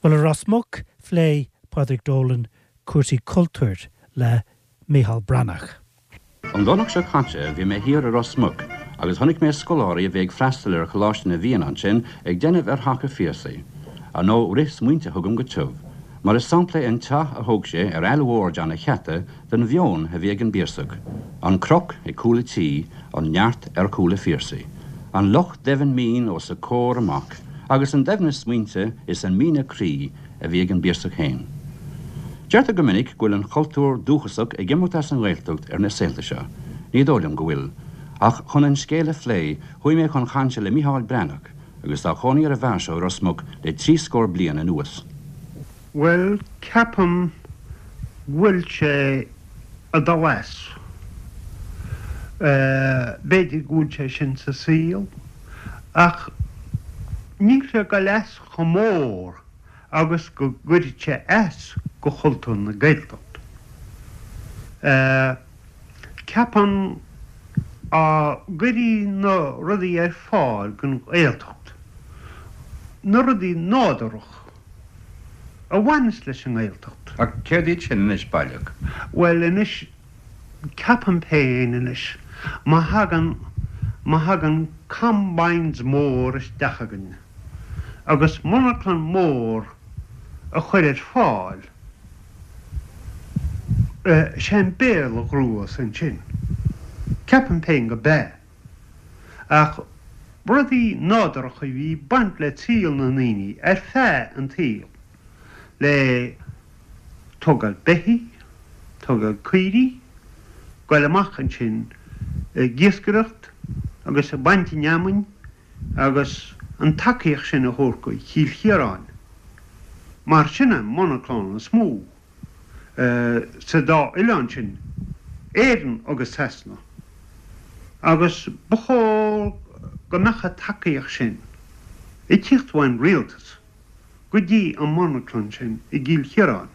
Bhuel, i Ros Muc, phléigh Pádraig Dolan cúrsaí cultúir le Micheál Breathnach. An Domhnach seo caite bhí mé thiar i Ros Muc agus chonaic mé scoláirí a bhí ag freastal ar Choláiste na bhFiann ansin ag déanamh ar theach a' Phiarsaigh. Ar ndóigh rith smaointe chugam go tiubh, mar is sampla é an teach a thóg sé ar Aill Mhór John a' Cheata den mheon a bhí ag an bPiarsach. An cnoc ag cúl a' tí, an neart ar chúl a' Phiarsaigh. An loch doimhin mín os a comhair amach agus an doimhneas smaointe is an míne croí a bhí ag an bPiarsach féin. Deirtear go minic go bhfuil an chultúr dúchasach ag imeacht as an nGaeltacht ar na saolta seo. Ní dóigh liom go bhfuil. Ach chun an scéal a phlé, chuaigh mé chun chainte le Micheál Breathnach, agus tá cónaí ar an bhfear seo i Ros Muc le 30 bliain anuas. Bhuel, ceapaim go bhfuil sé ag dul as. B'fhéidir go bhfuil sé sin sa saol, ach níl sé ag dul as chomh mór agus go gcuirfeadh sé as go chultúr na Gaeltachta. Ceapaim dá gcuirfí na rudaí ar fáil don Ghaeltacht, na rudaí nádúrach a bhaineas leis an nGaeltacht. Ach céard iad sin anois baileach? Bhuel anois, ceapaim féin anois, má thagann, má thagann combines mór isteach againn, agus monarchlann mór a chur ar fáil, sé an Béarla a ghnóthós ansin. Ceapaim féin go b'ea. Ach rudaí nádúrtha a bhí ag baint le saol na ndaoine ar feadh an tsaoil, le tógáil beithígh, tógáil caoirigh, goil amach ansin ag iascaireacht agus ag baint an fheamainn, agus an tacaíocht sin a thabhairt go Chill Chiaráin, mar sin an monarchlann is mó sa dá oileán sin, Éirinn agus Sasana, agus ba chóir go mbeadh an tacaíocht sin ag tíocht ón rialtas. go dtí an monarchlann sin i gCill Chiaráin.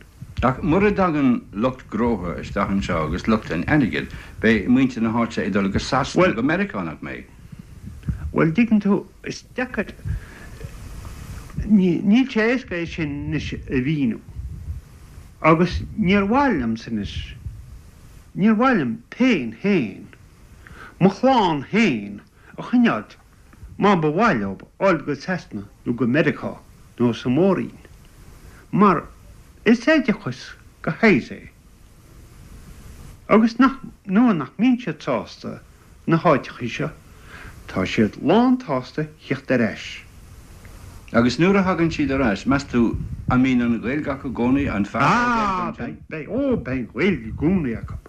Ach mura dtagann lucht gnótha isteach anseo agus lucht an airgid, beidh muintir na háite ag dul go Sasana nó go Meiriceá, nach mbeidh? Bhuel, dtuigeann tú, is deacair, níl sé éasca é sin anois a mhíniú. Agus níor mhaith liomsa anois, níor mhaith liom féin féin, mo chlann féin a choinneáilt má ba mhaith leo dul go Sasana nó go Meiriceá nó sa Mór-Roinn, mar is oideachas de shaghas é, agus nach, nuair nach mbíonn siad sásta na háiteachaí seo, tá siad lán-tsásta thíocht ar ais. Agus nuair a thagann siad ar ais, meas tú, an mbíonn an Ghaeilge acu i gcónaí? An fearr an Ghaeilge ansin? Ah, beidh, ó, beidh an Ghaeilge i gcónaí acu.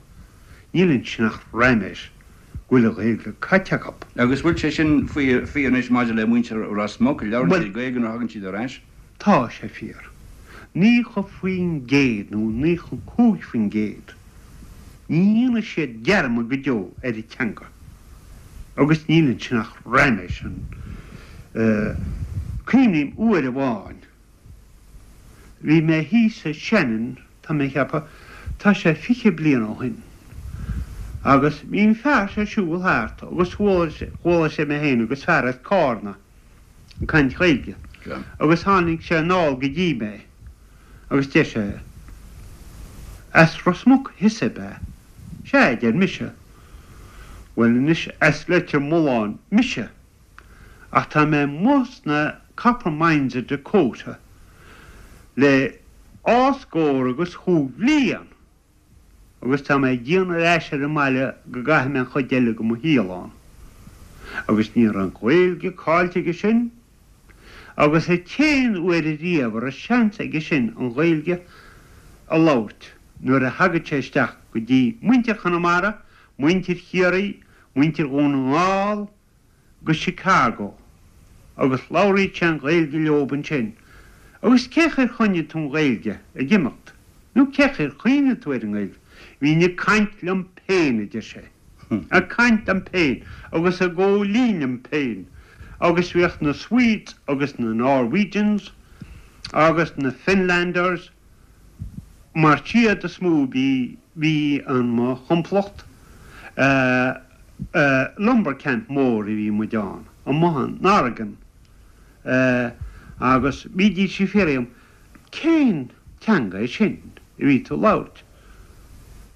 Níl ansin ach raiméis. go bhfuil an Ghaeilge caite acu. Agus bhfuil sé sin fíor anois maidir le muintir Ros Muc, labhrann siad Gaeilge nuair a thagann siad ar ais? Tá sé fíor. 90% nó 95%. Ní dhéanfaidh siad dearmad go deo ar an teanga. Agus níl ansin ach raiméis. Cuimhním uair amháin Bhí mé thíos i Shannon, tá mé a cheapadh, tá sé 20 bliain ó shin, agus bhí an fear seo ag siúl thart agus chuala sé mé féin agus fear as Cárna ag caint Ghaeilge agus tháinig sé anall go dtí mé agus deir sé, As Ros Muc thusa ab ea? Sea, a deir mise. Bhuel anois, as Leitir Mealláin mise. Ach tá mé amuigh sna copper mines i Dakota le dhá scór agus chúig bhliain agus tá mé ag déanamh ar ais ar an mbaile go gcaithfidh mé an chuid eile de mo shaol ann. Agus ní raibh an Ghaeilge caillte aige sin agus an t-aon uair ariamh a raibh seans aige sin an Ghaeilge a labhairt nuair a thagadh sé isteach go dtí muintir Chonamara, muintir Chiarraí, muintir Dhún na nGall, go Chicago agus labhraíodh sé an Ghaeilge leob ansin. Agus cén chaoi ar choinnigh tú an Ghaeilge ag imeacht? Nó cén chaoi ar chuimhnigh tú ar an nGaeilge? Bhínn ag caint liom féin, a deir sé. Ag caint liom féin agus ag góilín liom féin. Agus bhíodh na Swedes agus na Norwegians agus na Finlanders mar siad is mó bhí bhí in mo thimpeallacht lumber camp mór a bhí muid ann amuigh in Oregon agus bhídís ag fiafraí dhíom. Cén teanga é sin a bhí tú ag labhairt?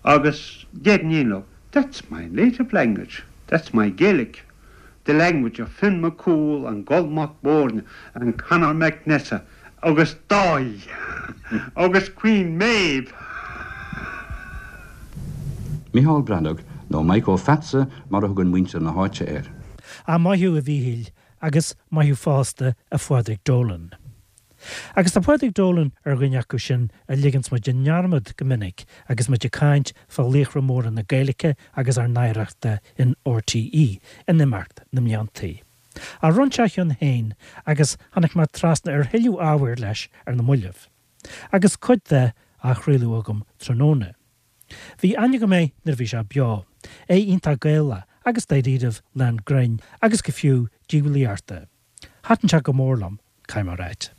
Agus déarfainn féin leo, That's my native language, that's my Gaelic, the language of Finn Mac Cumhaill and Goll Mac Bóirne and Conor Mac Nessa agus Dáithí agus Queen Maeve. Micheál Breathnach, nó Maidhc Ó Pheatsa mar a thugann muintir na háite air. Ah, maith thú a Mhíchíl, agus maith thú fosta a Phádraig Dolan. Agus tá Pádraig Dolan ar dhuine acu sin a ligeanns muid i ndearmad go minic agus muid ag caint fá laochra móra na Gaeilge agus ár n-oidhreachta in RTÉ in imeacht na mbliantaí. Ach rinne sé a chion féin agus tháinig mé trasna ar thuilleadh ábhair leis ar na moillibh. Agus cuid de á chraoladh agam tráthnóna. Bhí aithne agam air nuair a bhí sé beo, é iontach Gaelach agus dáiríribh lán grinn agus go fiú diabhlaíochta. Thaitin sé go mór liom, caithfidh mé a ráit.